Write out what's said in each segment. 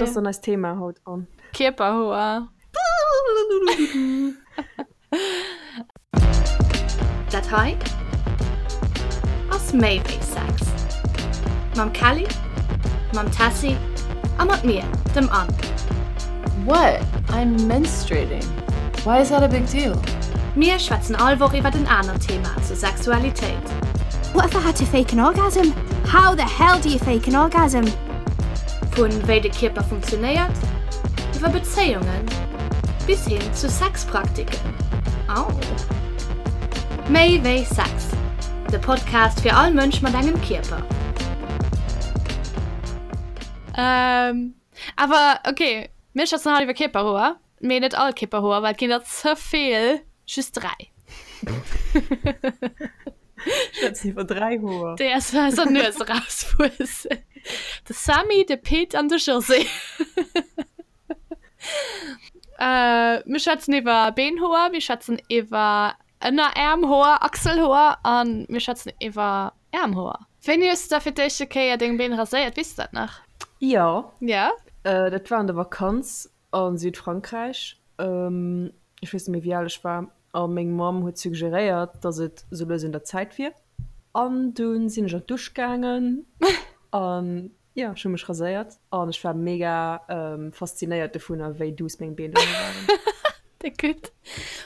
Wat ass dann eist Thema haut, Anne? Kierperhoer. Dat hei ass méi wéi Sex. Mam Kelly, mam Tessy a mat mir, dem Anne. What? I'm menstruating. Why is that a big deal? Mir schwätzen all Woch iwwert en anert Thema zur Sexualitéit. What if I had to fake an orgasm? How the hell do you fake an orgasm? Vun wéi de Kierper funktionéiert, iwwer Bezéiungen bis hin zu Sexpraktiken. Au! Méi wéi Sex, de Podcast fir all Mënsch mat engem Kierper. Awer ok, mir schwätzen haut iwwer Kierperhoer, mee net all Kierperhoer, well et ginn der ze vill, just 3. Schwätzen iwwer 3 Hoer. Déi aus eiser Nues erauswuessen. De Sammy, de Pit an de José. Mir schwätzen iwwer Beenhoer, mir schwätzen iwwer Ënneräermhoer, Achselhoer a mir schwätzen iwwer Äermhoer. Wéini hues de da fir d'éischte Kéier deng Been raséiert? Weess de dat nach? Jo. Ja? Dat war an der Vakanz a Südfrankräich. Ech weess net méi, wéi al ech war. A meng Mamm huet suggeréiert, dass et sou lues un der Zäit wier. An dunn sinn ech an d'Dusch gaangen an jo, ech hu mech raséiert an ech war mega faszinéiert dovunner, wéi duuss meng Been dono waren. Déck gutt.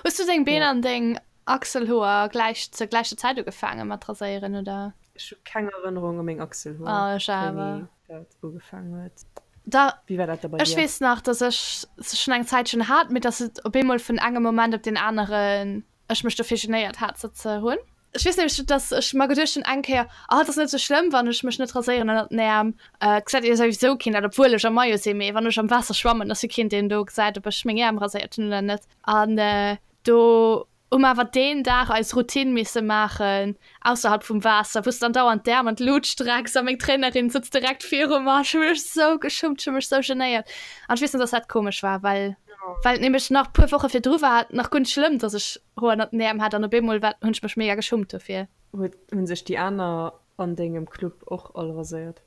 Hues du deng Been an deng Achselhoer gläich zur gläicher Zäit ugefaange mat raséieren, oder? Ech hu keng Erënnerung u meng Achselhoer, Oh, ech awer. wéini dat ugefaangen huet. Da, Wéi war dat da bei ech dir? weess nach, dass ech se schonn eng Zäitchen hat, mee dass et op eemol vun engem Moment op deen aneren ech mech dofir genéiert hat, se ze hunn. Ech weess nämlech, dass ech mer geduecht hunn eng Kéier, Oh, et ass net esou schlëmm, wann ech mech net raséieren ënnert den Äerm. Et gesäit jo souwisou keen dat, obwuel ech am Maillot sinn, mee wann ech am Waasser schwammen, ass jo keen, deen do gesäit, ob ech meng Äerm raséiert hunn oder net. An do hu mer awer deen Dag eis Routine misse maachen, ausserhalb vum Waasser, wou s de dann dauernd d'Äerm an d'Lut strecks a meng Trainerin sëtzt direkt viru mer. Ech hu mech esou geschummt, ech hu mech esou genéiert. An ech weess nach, dass dat komesch war, well well et nämlech nach puer Woche virdru war et nach guer net schlëmm, dass ech Hoer ënnert den Äerm hat an op eemol war hunn ech mech mega geschummt dofir. Huet hunn sech déi aner an dengem Club och all raséiert?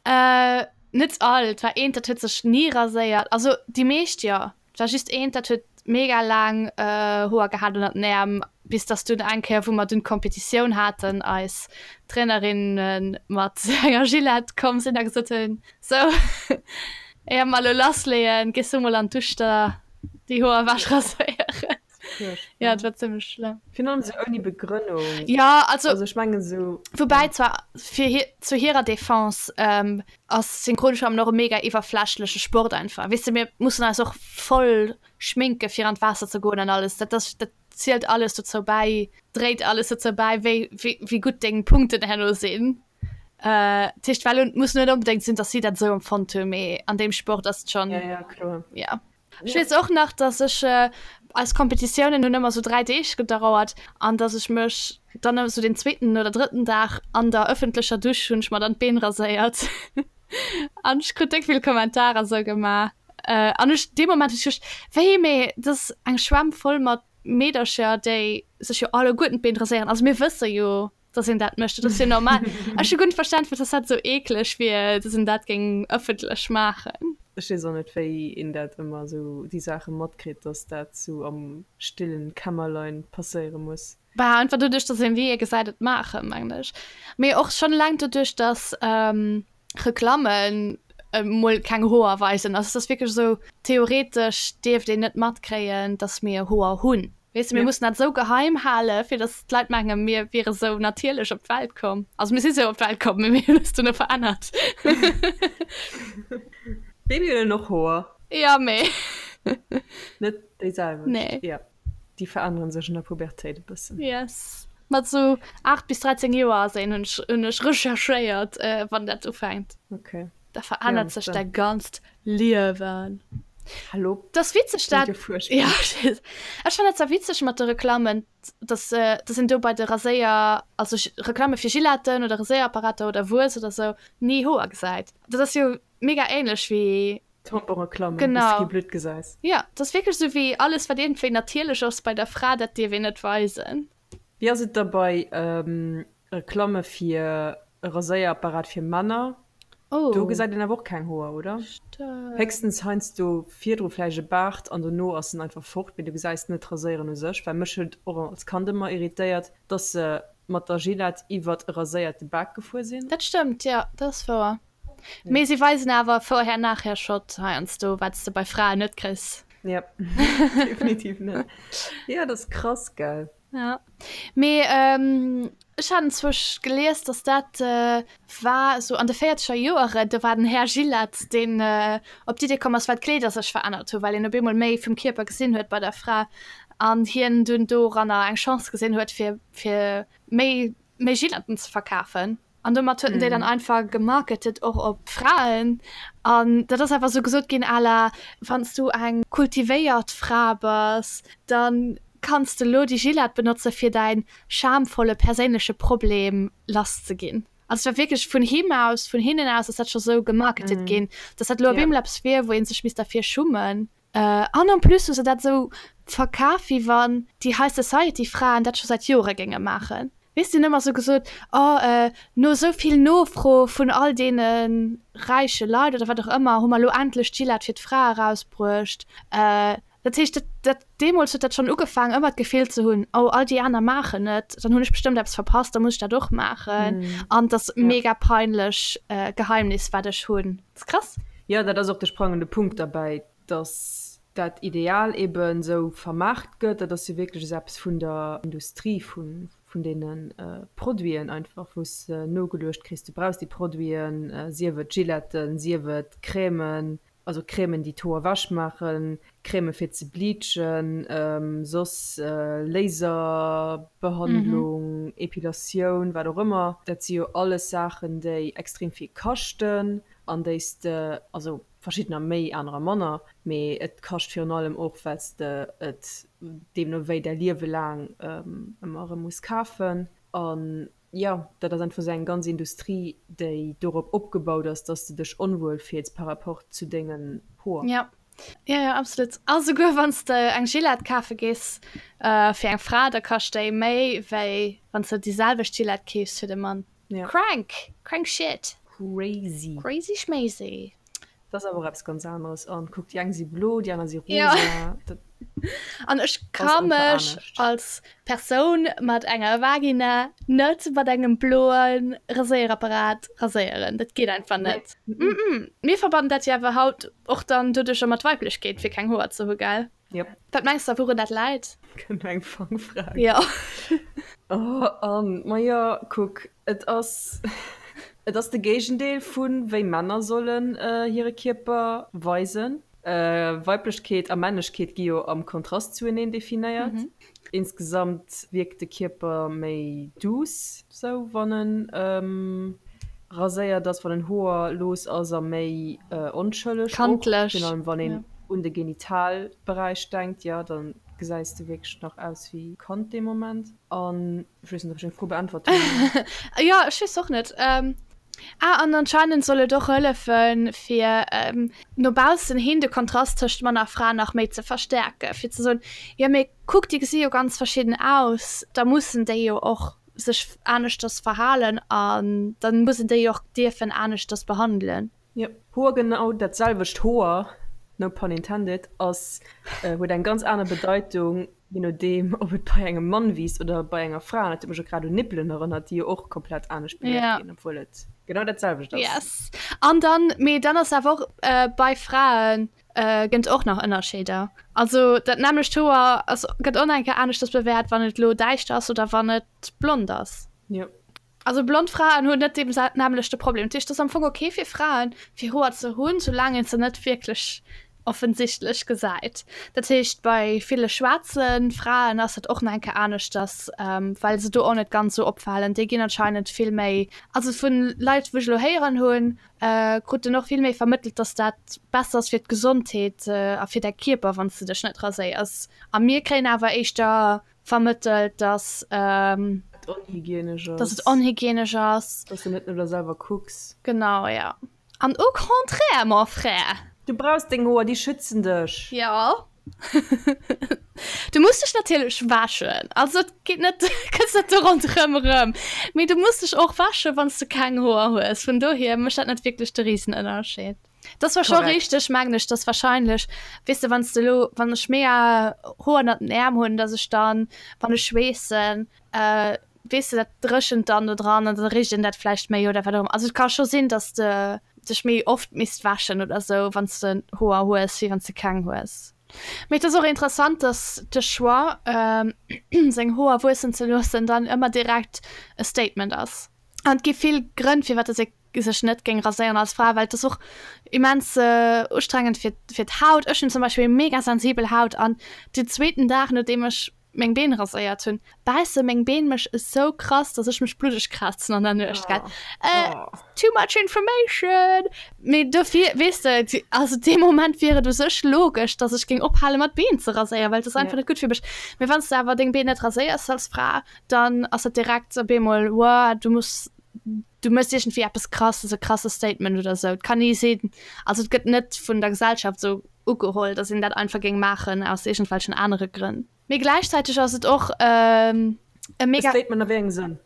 Äh, net all. Et war eent, dat huet sech ni raséiert. Also déi meescht jo. Et war just eent, dat huet mega laang Hoer gehat ënnert den Äerm, bis dass dunn eng Kéier, wou mer dunn d'Kompetitioun haten, eis Trainerinne mat enger Gillette komm sinn a gesot hunn, Sou, éier mer elo lassleeën, gees du mol an d'Dusch der déi Hoer ewech raséieren. Ja, et war zimmlech schlëmm. Virun allem esou ouni Begrënnung. Ja, also. Also ech mengen esou. Woubäi zwar fir hir, zu hirer Defense, ass Synchronschwammen och e mega iwwerflächleche Sport einfach. Weess de, mir mussen eis och voll schminke fir an d'Waasser ze goen an alles. Dat ass, dat zielt alles dozou bäi, dréit alles dozou bäi, wéi, wéi, wéi gutt deng Punkten herno sinn. Dat heescht, well et muss net onbedéngt sinn, datt si dat esou empfonnt hunn, mee an deem Sport ass et schonn. Ja, ja, kloer. Ja. Ech weess och nach, dass ech, eis Kompetitiounen hunn ëmmer sou 3 Deeg gedauert, an dass ech mech dann esou den zweeten oder drëtten Dag an der ëffentlecher Dusch hunn ech mer dann d'Been raséiert. An ech krut déck vill Kommentarer sou gemaach. An ech, dee Moment hunn ech geduecht, wéi, mee dat ass eng Schwämm voll mat Meedercher, déi sech jo alleguerten d'Been raséieren. Also mir wësse jo, dass een dat mécht, dat ass jo normal. Ech hu guer net verstan, firwat dass dat esou eekleg wier, dass een dat géing ëffentlech maachen. Ech weess och net, wéi een dat ëmmer esou, déi Saache matkritt, dass dat esou am stillen Kämmerlein passéiere muss. Bah, einfach doduerch, dass een wéi ee gesäit et maachen, mengen ech. Mee och schonn eleng doduerch, dass Reklammen emol keng Hoer weisen. Also et ass wierklech esou, theoretesch dierft een net matkréien, dass mir Hoer hunn. Weess de, mir mussen dat esou geheim hale fir datt d'Leit mengen, mir wiere sou natierlech op d'Welt komm. Also mir si sou op d'Welt komm, mee mir hunn eis duerno verännert. Babyen hunn och Hoer. Jo, mee. Net déi selwecht. Nee. Jo, déi verännere sech an der Pubertéit e bëssen. Yes. Mat sou 8 bis 13 Joer ass een, hunn ech, hunn ech recherchéiert, wann dat ufänkt. Okay. Da verännert sech däi ganzt Liewen. Hallo? Dat ass witzeg dat. Ja, ech fannen dat zwar witzeg mat de Reklammen, dass dass een do bei de Raséier, also Reklamme fir Gilletten oder Raséierapparater oder Wuess oder sou, ni Hoer gesäit. Dat ass jo mega ähnlech wéi. Tamponreklammen, wou s de kee Blutt gesäis. Ja, dat ass wierklech sou wéi alles wat iergendwéi natierlech ass bei der Fra, dat dierf een net weisen. Wéi ass et da bei Reklamme fir e Raséierapparat fir Männer? Oh. Do gesäit een awer och keng Hoer, oder? Stimmt. Héchstens heiansdo virdru vläicht e Baart an dono ass en einfach fort, mee du gesäis net d'Raséieren u sech. Well mech huet och als Kand ëmmer irritéiert, dass se mat der Gillette iwwert e raséierte Bak gefuer sinn. Dat stëmmt, jo, dat ass wouer. Mee si weisen awer Vorher-Nachher-Shot heiansdo, wat s de bei Fraen net kriss. Jep, definitiv net. Jo, dat ass krass, gell? Ja, mee ech hat enzwousch gelies, dass dat war esou an de véierzeger Joeren, do war den Här Gillette, deen op d'Idee komm ass, well d'Kleeder sech verännert hu, well een op eemol méi vum Kierper gesinn huet bei der Fra an hien dunn doranner eng Chance gesinn huet, fir fir méi méi Gilletten ze verkafen. An domat huet en déi dann einfach gemarketet och op Fraen. An dat ass einfach esou gesot ginn à la, wann s du eng kultivéiert Fra bass, da kanns de elo déi Gillette benotze fir däin schamvolle perséinleche Problem lass ze ginn. Also et war wierklech vun him aus, vun hinnen aus ass dat scho sou gemarketet ginn, dass dat elo op eemol eppes wier, wou ee sech misst derfir schummen. An en plus hu se dat esou verkaf, wéi wann déi High Society Fraen dat scho säit Jore géinge maachen. Weess, déi hunn ëmmer esou gesot, oh, no esou vill Nofro vun all deene räiche Leit oder wat och ëmmer, hu mer elo endlech d'Gillette fir d'Fra erausbruecht. Dat heescht, dat, dat, deemools huet dat schonn ugefaangen, ëmmer d'Gefill ze hunn, oh, all déi aner maachen et, dann hunn ech bestëmmt eppes verpasst, da muss ech dat och maachen. An et ass mega peinlech Geheimnis, wat ech hunn. Dat ass krass. Jo, dat ass och de sprangende Punkt derbäi, dass dat Ideal eben esou vermaart gëtt. Dat ass jo wierklech esou eppes vun der Industrie, vun deene Produiten einfach, wou s de nogeluecht kriss, du brauchs déi Produiten, sief et Gilletten, sief et Crèmen, also Crèmen, déi d'Hoer ewech maachen, Crèmen fir ze bleachen, soss Laserbehandlung, Epilatioun, wat och ëmmer. Dat si jo alles Saachen, déi extrem vill kaschten an déi s de, also verschiddener méi, anerer manner, mee et kascht virun allem och, well s de et deemno wéi däi Liewe laang ëmmer erëm muss kafen. An jo, dat ass einfach esou eng ganz Industrie, déi dorop opgebaut ass, dass de dech onwuel fills par rapport zu dengen Hoer. Jo, jo, jo, absolut. A souguer wann s de eng Gillette kafe gees fir eng Fra, da kascht déi méi, wéi wann s de déi selwecht Gillette keefs fir de Mann. Ja. Crank! Crank shit! Crazy. Crazy schmazy. Dat ass awer och eppes ganz aneres. An kuck, déi eng si blo, déi aner si rosa. Ja. Dat An ech ka mech als Persoun mat enger Vagina net mat engem bloe Raséierapparat raséieren. Dat geet einfach net. Nee. Mm -mm. Mir verbannen dat jo awer haut och dann doduercher mat Weiblechkeet, fir keng Hoer ze hu, gell? Yep. Wat mengs de, wourun dat läit? Kënnt eng Fangfrag. Jo. Oh, Anne, majo, kuck, et ass, et ass de Géigendeel vu wéi Männer sollen hire Kierper weisen. Weiblechkeet a Männlechkeet gi jo am Kontrast zueneen definéiert. Insgesamt wierkt de Kierper méi douce, sou wann en raséiert ass, wann en hoerlos ass a méi onschëlleg och. Kandlech. Virun allem wann een un de Genitalberäich denkt, jo, da gesäis de wierklech nach aus wéi Kand dee Moment. An ech weess net, ob ech deng Fro beäntwert hunn. Jo, ech weess och net. Ah, an anscheinend soll et och hëllefen, fir no baussen hin de Kontrast tëscht Mann a Fra nach méi ze verstäerken, fir ze soen, jo mee kuck, déi gesi jo ganz verschidden aus, da mussen déi jo och sech aneschters verhalen an da muss een déi och dierfen aneschters behandelen. Jo, Hoer, genau dat selwecht Hoer, no pun intended, ass, huet eng ganz aner Bedeitung, je nodeem ob et bei engem Mann wiisst oder bei enger Fra. An dat huet mech och grad un Nippelen erënnert, déi jo och komplett anescht bewäert ginn, obwuel et genau dat selwecht ass. Yes. An dann, mee dann ass awer och bei Frae gënnt och nach Ënnerscheeder. Also dat nämmlecht Hoer ass, gëtt och nach eng Kéier aneschters bewäert, wann et elo däischter ass oder wann et blond ass. Jo. Also blond Fraen hunn net dee nämmlechte Problem. Dat heescht, et ass am Fong ok fir Fraen, fir Hoer ze hunn, soulaang een se net wierklech offensichtlech gesäit. Dat heescht, bei ville schwaarze Fraen ass dat och nach eng Kéier aneschters, well se do och net ganz esou opfalen. Déi ginn anscheinend vill méi, also vu Leit, wou ech elo héieren hunn, krut en och vill méi vermëttelt, dass dat besser ass fir d'Gesondheet a fir däi Kierper, wann s de dech net raséiers. A mir kréien awer éischter vermëttelt, dass et onhygienesch ass, dass et onhygienesch ass, dass du net no der selwer kucks. Genau, ja. An au contraire, mon frère! Du brauchs deng Hoer, déi schützen dech. Jo. Du muss dech natierlech wäschen, also et geet net, kënns net do ronderëm erëm, mee du muss dech och wäschen, wann s du keng Hoer hues. Vun dohier mécht dat net wierklech de Risenënnerscheed. Dat ass zwar scho richteg, mengen ech, dass warscheinlech, weess de, wann s de elo, wann ech mega Hoer ënnert den Äerm hunn, dass ech dann, wann ech schweessen, weess de, dat dréchent dann do dran an da richt een dat vläicht méi oder wat och ëmmer. Also et ka scho sinn, dass de dech méi oft misst wäschen oder sou, wann s de Hoer hues, wéi wann s de keng hues. Mee et ass och interessant, dass de Choix, seng Hoer wuessen ze loossen, dann ëmmer direkt e Statement ass. An et gi vill Grënn, firwat dass ee sech net géing raséieren als Fra, well et ass och immens ustrengend fir fir d'Haut. Ech hunn zum Beispill mega sensibel Haut an den zweeten Dag, nodeem ech meng Been raséiert hunn, bäisse meng Been mech esou krass, dass ech mech bluddeg kratzen an der Nuecht, gell. Too much information! Mee dofir, weess de, also dee Moment wier et u sech logesch, dass ech géing ophale mat Been ze raséieren, well et ass einfach net gutt fir mech. Mee wann s de awer deng Been net raséiers als Fra, dann ass dat direkt op eemol, Wow, du muss, du méchs iergendwéi eppes Krasses, e krasse Statement oder esou. Et kann ni sinn, also et gëtt net vun der Gesellschaft esou ugeholl, dass een dat einfach géing maachen aus iergendwelchen anere Grënn. Mee gläichzäiteg ass et och e mega. E Statement a wéi engem Sënn?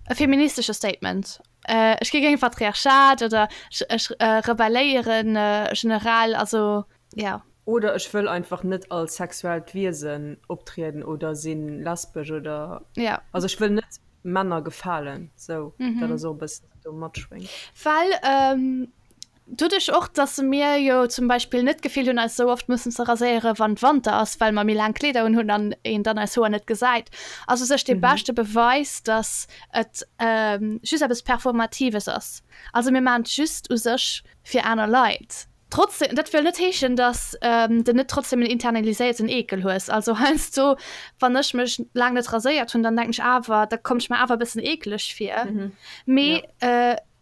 E feministesche Statement. Ech gi géint Patriarchat oder ech rebelléieren generell, also jo. Oder ech wëll einfach net als sexuellt Wiesen optrieden oder si lesbesch oder. Jo. Also ech wëll net Männer gefalen, sou. Dat ass och e bëssen, wat do matschwéngt. Well Doduerch och, dass mir jo zum Beispill net d'Gefill hunn, eis esou oft mussen ze raséieren, wann Wanter ass, well mer méi laang Kleeder unhunn an een dann eis Hoer net gesäit, ass u sech dee beschte Beweis, dass et just eppes Performatives ass. Also mir maachen et just u sech fir aner Leit. Trotzdem, dat wëll net heeschen, dass de net trotzdem en internaliséierten Eekel hues. Also heiansdo, wann ech mech laang net raséiert hunn, dann denken ech awer, da kommt ech mer awer e bëssen eekeleg vir. Mee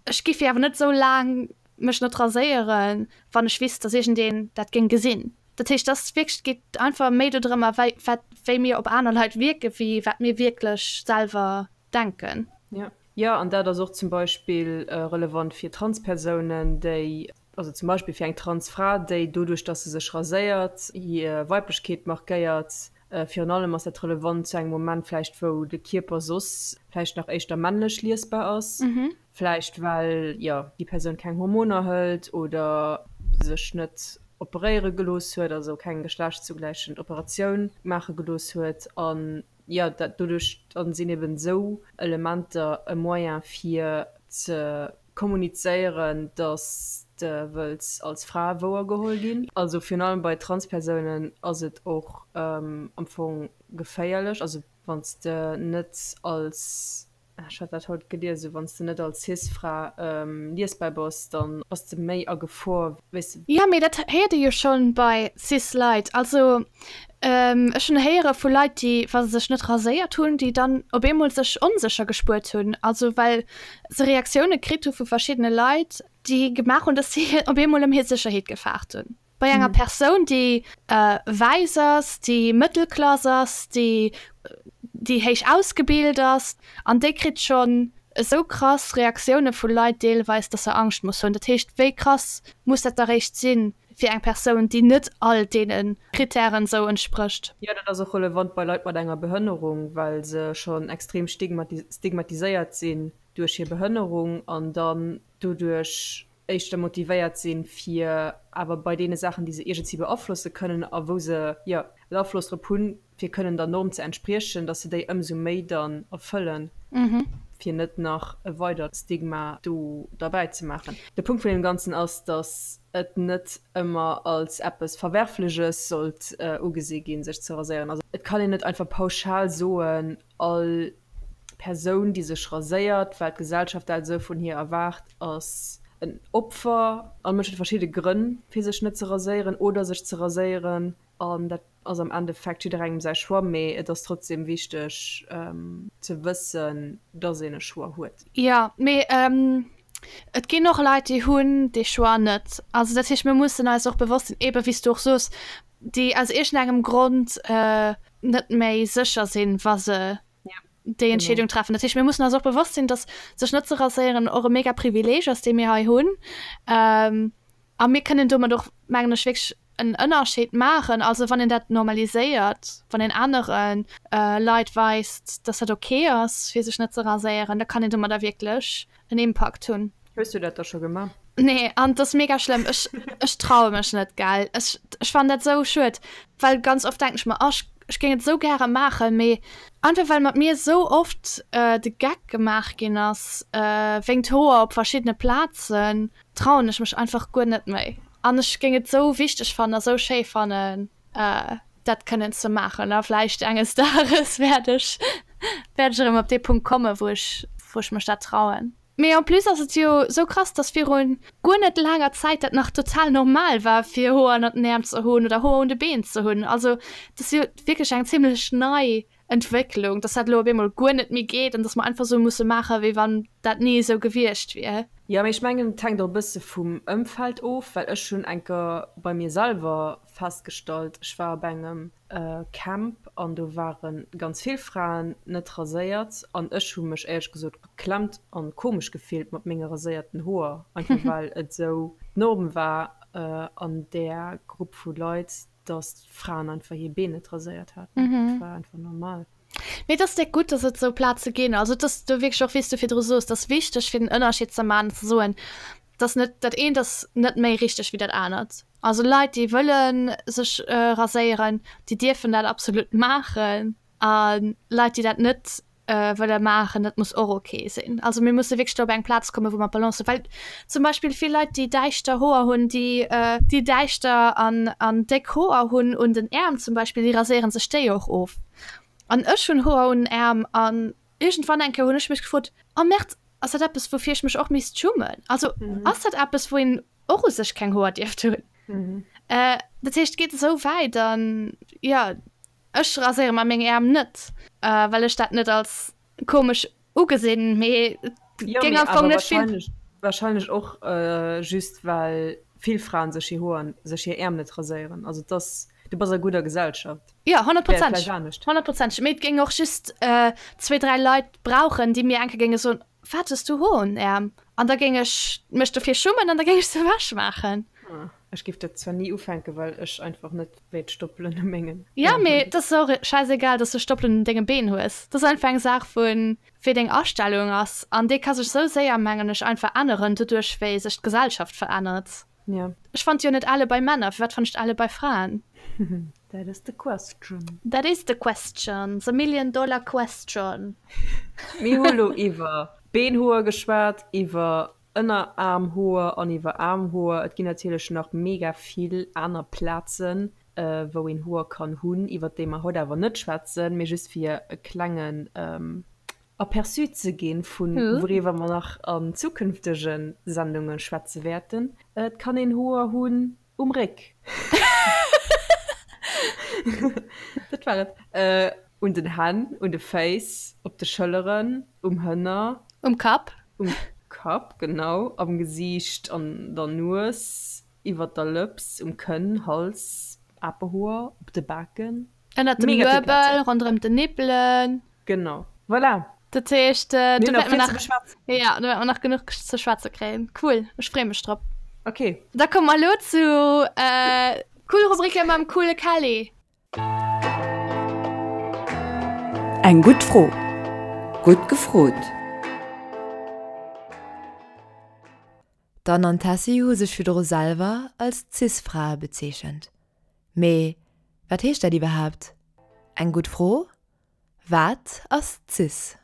Ech giff jo awer net sou laang mech net raséieren, wann ech wisst, dass iergendeen dat géing gesinn. Dat heescht, dass wierklech, et geet einfach méi dodrëmmer, wei wat, wéi mir op aner Leit wierken, wéi wat mir wierklech selwer denken. Jo, jo, an dat ass och zum Beispill relevant fir Transpersounen, déi, also zum Beispill fir eng Transfra, déi doduerch, dass se sech raséiert, hir Weiblechkeet markéiert, Virun allem ass dat relevant zu engem Moment vläicht, wou de Kierper soss vläicht nach éischter männlech liesbar ass, vläicht well, jo, déi Persoun keng Hormoner hëlt oder sech net operéiere gelooss huet, also keng geschlechtszugläichend Operatioun maache gelooss huet. An, jo, dat doduerch dann sinn eben esou Elementer e Moyen fir ze Kommunizéieren, dass de wëlls als Fra wouergeholl ginn. Also virun allem bei Transpersounen ass et och am Fong geféierlech, also wann s de net als, ech hat dat haut gelies, esou wann s de net als Cis-Fra liesbar bass, dann bass de méi a Gefor, weess de. Jo, mee dat héiert ee jo schonn bei Cis-Leit. Also Ech hunn héiere vu Leit, déi, wa se sech net raséiert hunn, déi dann op eemol sech onsécher gespuert hunn, also well se Reaktioune kritt hu vu verschiddene Leit, déi gemaach hunn, datt si op eemol ëm hir Sécherheet gefaart hunn. Bei enger Persoun, déi wäiss ass, déi Mëttelklass ass, déi déi héich ausgebilt ass, an déi kritt schonn esou krass Reaktioune vu Leit deelweis, datt se Angscht muss hunn. Dat heescht, wéi krass muss dat da réischt sinn, fir eng Persoun, déi net all deene Krittären esou entsprécht. Jo, dat ass och relevant bei Leit mat enger Behënnerung, well se schonn extrem stigmatiséiert sinn duerch hir Behënnerung an dann doduerch éischter motivéiert sinn, fir awer bei deene Saachen, déi se iergendwéi beaflosse kënnen a wou se, jo, en Afloss drop hunn, fir kënnen der Norm ze entspriechen, dass se déi ëmsou méi dann erfëllen, fir net nach e weidert Stigma do derbäi ze maachen. De Punkt vun deem Ganzen ass, dass et net ëmmer als eppes Verwerfleches sollt ugesi ginn, sech ze raséieren. Also et kann een net einfach pauschal soen, all Persoun, déi sech raséiert, well d'Gesellschaft dat esou vun hir erwaart, ass en Opfer. All Mënsch huet verschidde Grënn, fir sech net ze raséieren oder sech ze raséieren. An dat ass am Endeffekt jidderengem säi Choix, mee et ass trotzdem wichteg ze wëssen, dass een e Choix huet. Jo, mee et ginn och Leit, déi hunn dee Choix net. Also dat heescht, mir mussen eis och bewosst sinn, eebe wéi s du och soos, déi aus iergendengem Grond net méi sécher sinn, wa se déi Entscheedung treffen. Dat heescht, mir mussen eis och bewosst sinn, dass sech net ze raséieren och e mega Privileeg ass, dee mir hei hunn. A mir kënnen domat och, mengen ech, wierklech. en Ënnerscheed maachen. Also wann een dat normaliséiert, wann een anere Leit weist, dass dat ok ass fir sech net ze raséieren, da kann een domadder wierklech en Impakt hunn. Hues du dat da scho gemaach? Nee, an et ass mega schlëmm. Ech, ech traue mech net, gell. Ech, ech fannen dat sou schued, well ganz oft denken ech mer, oh, ech, ech géing et sou gäre maachen, mee einfach well mat mir sou oft de Geck gemaach ginn ass wéingt Hoer op verschiddene Plazen, trauen ech mech einfach guer net méi. An ech géing et sou wichteg fannen a sou schéi fannen, dat kënnen ze maachen. A vläicht enges Dages wäert ech, wäert ech erëm op dee Punkt kommen, wou ech, wou ech mech dat trauen. Mee en plus ass et jo sou krass, dass virun guer net laanger Zäit dat nach total normal war fir Hoer ënnert den Äerm ze hunn oder Hoer un de Been ze hunn. Also dat ass jo wierklech eng zimlech nei Entwécklung, dass dat elo op eemol guer net méi geet an dass mer einfach sou musse maachen, wéi wann dat ni esou gewiescht wier. Jo, mee ech mengen et hänkt och e bësse vum Ëmfeld of, well ech hunn enker bei mir selwer festgestallt, ech war op engem Camp an do ware ganz vill Fraen net raséiert an ech hu mech éierlech gesot geklemmt an komesch gefillt mat menge raséierten Hoer, einfach well et esou d'Norm war an där Grupp vu Leit, dass d'Fraen einfach hir Been net raséiert haten. Dat war einfach normal. Mee et ass déck gutt, dass et esou Plaze ginn. Also et ass do wierklech och, wéi s du virdru soos, et ass wichteg fir den Ënnerscheed ze maachen an ze soen, dass net dat eent ass net méi richteg wéi dat anert. Also Leit, déi wëlle sech raséieren, déi dierfen dat absolut maachen a Leit, déi dat net wëlle maachen, dat muss och ok sinn. Also mir musse wierklech do op eng Plaz kommen, wou mer d'Balance hunn. Well zum Beispill vill Leit, déi däischter Hoer hunn, déi déi däischter an an déck Hoer hunn un den Äerm zum Beispill, déi raséiere sech déi och of. An ech hunn Hoer un den Äerm an iergendwann eng Kéier hunn ech mech gefrot, Oh Merde, ass dat eppes, woufir ech mech och misst schummen? Also ass dat eppes, wou een och u sech keng Hoer dierft hunn? Dat heescht, et geet esou wäit an jo. Ech raséiere mer meng Äerm net, well ech dat net als komesch ugesinn, mee et géing am Fong net vill. Wahrscheinlech och just well vill Fraen sech hir Hoer, sech hir Äerm net raséieren. Also et ass, du bass a gudder Gesellschaft. Jo, honnertprozenteg, honnertprozenteg. Mee et géing och just zwee, dräi Leit brauchen, déi mir eng Kéier géinge soen, Wat hues du Hoer un den Äerm? An da géing ech mech dofir schummen an da géing ech se ewech maachen. Ech géif dat zwar ni ufänken, well ech einfach net wéilt Stoppelen u mengen Ja, mee et ass och schäisegal, dass du Stoppelen un denge Been hues. Dat ass einfach eng Saach vun wéi deng Astellung ass an déi ka sech sou séier, mengen ech, einfach änneren, doduerch wéi sech d'Gesellschaft verännert. Ja. Ech fannt jo net elle bei Männer, firwat fann ech elle bei Fraen? That is the question. That is the question, the million dollar question. Mir hu lo iwwer Beenhoer geschwat, iwwer Ënneraarmhoer an iwwer Aarmhoer. Et ginn natierlech nach mega vill aner Plazen, wou een Hoer kann hunn, iwwer déi mer haut awer net schwätzen, mee just fir e klengen Aperçu ze ginn, vu wouriwwer mer nach an zukünftege Sendunge schwätze wäerten. Et kann een Hoer hunn Um Réck. Dat war et. Un den Hänn, un de Féiss, op de Schëlleren, um Hënner. Um Kapp. Um Kapp, genau. Am Gesiicht, an der Nues, iwwer der Lëps, um Kënn, Hals, Apehoer, op de Baken. Ënnert dem Nuebel, ronderëm den Nippelen. Genau. Voilà! Dat heescht, do wäerte mer nach, ja, do wäerte mer nach genuch ze schwätze kréien. Cool, ech freeë mech drop. Ok. Da komme mer elo zu Cool Rubrike mam coole Kelly. Eng gutt Fro. Gutt gefrot. D'Anne an d'Tessy hu sech virdru selwer als Cis-Frae bezeechent. Mee wat heescht dat iwwerhaapt? Eng gutt Fro, Wat ass cis?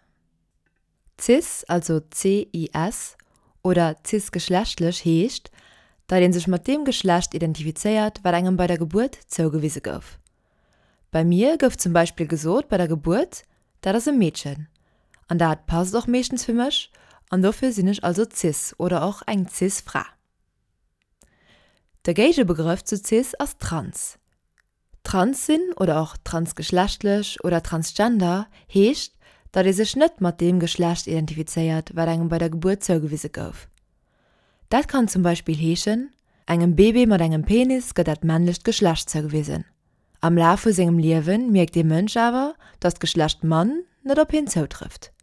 Cis, also CIS, oder cisgeschlechtlech heescht, datt ee sech mat deem Geschlecht identifizéiert, wat engem bei der Gebuert zougewise gouf. Bei mir gouf zum Beispill gesot bei der Gebuert, dat ass e Meedchen. An dat passt och meeschtens fir mech an dofir sinn ech also cis oder och eng cis Fra. De Géigebegrëff zu cis ass trans. Trans sinn oder och transgeschlechtlech oder transgender heescht, datt ee sech net mat deem Geschlecht identifizéiert, wat engem bei der Gebuert zougewise gouf. Dat kann zum Beispill heeschen, engem Bébé mat engem Penis gëtt dat männlecht Geschlecht zougewisen. Am Laf vu sengem Liewe mierkt dee Mënsch awer, datt d'Geschlecht Mann net op hien zoutrëfft.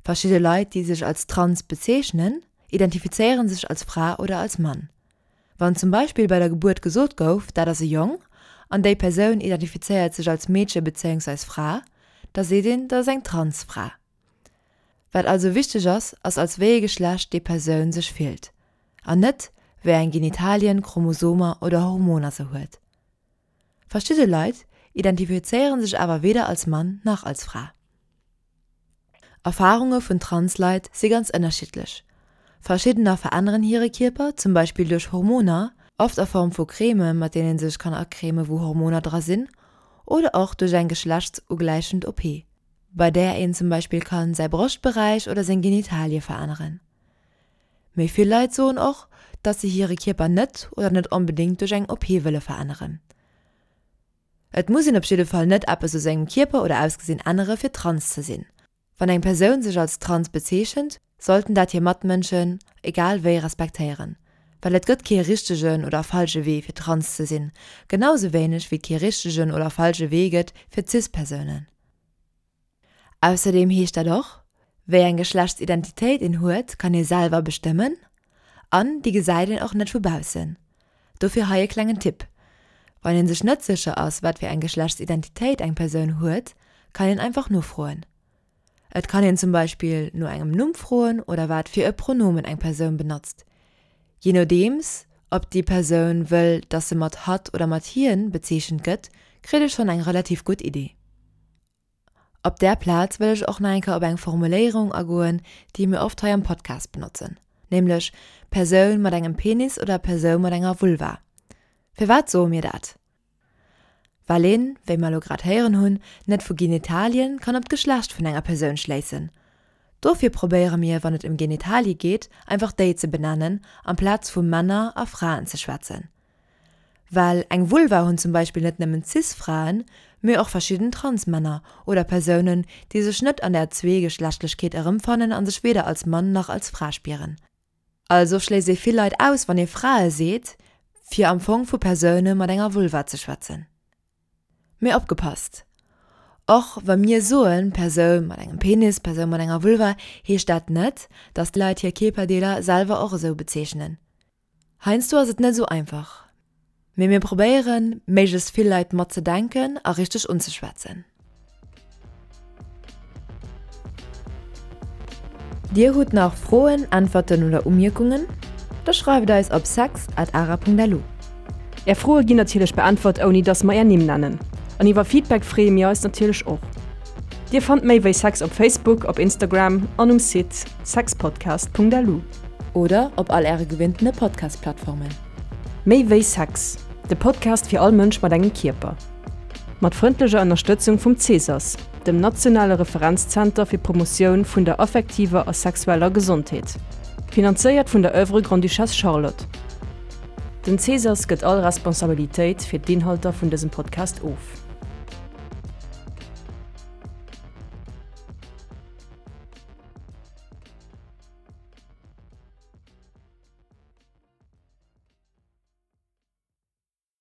Verschidde Leit, déi sech als trans bezeechnen, identifizéiere sech als Fra oder als Mann. Wann zum Beispill bei der Gebuert gesot gouf, dat ass e Jong, an déi Persoun identifizéiert sech als Meedche bezéiungsweis Fra, da seet een, dat ass eng Transfra. Wat also wichteg ass, ass als wéi ee Geschlecht déi Persoun sech fillt, an net wéi eng Genitalien, Chromosomer oder Hormoner se huet. Verschidde Leit identifizéiere sech awer weder als Mann nach als Fra. Erfarunge vun Trans-Leit si ganz ënnerschiddlech. Verschiddener veränneren hire Kierper, zum Beispill duerch Hormoner, oft a Form vu Creme mat deenen ee sech kann acreme wou Hormoner dra sinn, oder och duerch eng geschlechtsugläichend OP, bei där een zum Beispill kann säi Broschtberäich oder seng Genitalie veränneren. Méi vill Leit soen och, dass se hire Kierper net oder net onbedéngt duerch eng OP wëlle veränneren. Et muss een op jidde Fall net eppes u sengem Kierper oder Ausgesinn ännere fir trans ze sinn. Wann eng Persoun sech als trans bezeechent, sollten dat hir Matmënschen egal wéi respektéieren. Well et gëtt kee richtegen oder falsche Wee fir trans ze sinn, genau sou wéineg wéi et kee richtegen oder falsche Wee gëtt fir cis Persounen. Ausserdeem heescht dat och, wéi eng Geschlechtsidentitéit een huet, kann ee selwer bestëmmen an déi gesäit een och net vu baussen. Dofir hei e klengen Tipp, Wann een sech net sécher ass, wat fir eng Geschlechtsidentitéit eng Persoun huet, kann een einfach nofroen. Et kann een zum Beispill no engem Numm froen oder wat fir e Pronomen eng Persoun benotzt. Jee nodeems ob déi Persoun wëll, dass se mat hatt oder mat hien bezeechent gëtt, kritt ee schonn eng relativ gutt Idee. Op där Plaz wëll ech och nach eng Kéier op eng Formuléierung agoen, déi mir oft hei am Podcast benotzen, nämlech Persoun mat engem Penis oder Persoun mat enger Vulva. Firwat soe mir dat? Well een, wéi mer elo grad héieren hunn, net vu Genitalien kann op d'Geschlecht vun enger Persoun schléissen. Dofir probéiere mir, wann et ëm Genitalie geet, einfach déi ze benennen, amplaz vu Männer a Fraen ze schwätzen. Well eng Vulva hunn zum Beispill net nëmmen Cis-Fraen, mee och verschidden Trans-Männer oder Persounen, déi sech net an der Zweegeschlechtlechkeet erëmfannen a sech weder als Mann nach als Fra spieren. Also schléisst ee vill Leit aus, wann ee Frae seet, fir am Fong vu Persoune mat enger Vulva ze schwätzen. Mee opgepasst, Och wa mir soen, Persoun mat engem Penis, Persoun mat enger Vulva, heescht dat net, datt d'Leit hir Kierperdeeler selwer och esou bezeechnen. Heiansdo ass et net esou einfach, mee mir probéieren, méiglechst vill Leit matzedenken a richteg unzeschwätzen. Dir hutt nach Froen, Äntwerten oder Umierkungen? Da schreift eis op sex at ara.lu. Är Froe ginn natierlech beäntwert ouni dass mer är Nimm nennen. An iwwer Feedback freeë mir eis natierlech och. Dir fannt méi wéi Sex op Facebook, op Instagram an um Site sexpodcast.lu. Oder op all äre gewinntene Podcast-Plattformen. Méi wéi Sex, de Podcast fir all Mënsch mat engem Kierper. Mat frëndlecher Ënnerstëtzung vum CSAS, dem nationale Referenzzenter fir d'Promotioun vun der affektiver a sexueller Gesondheet. Finanzéiert vun der Oeuvre Grande-Duchesse Charlotte. Den CSAS gëtt all Responsabilitéit fir d'Inhalter vun dësem Podcast of.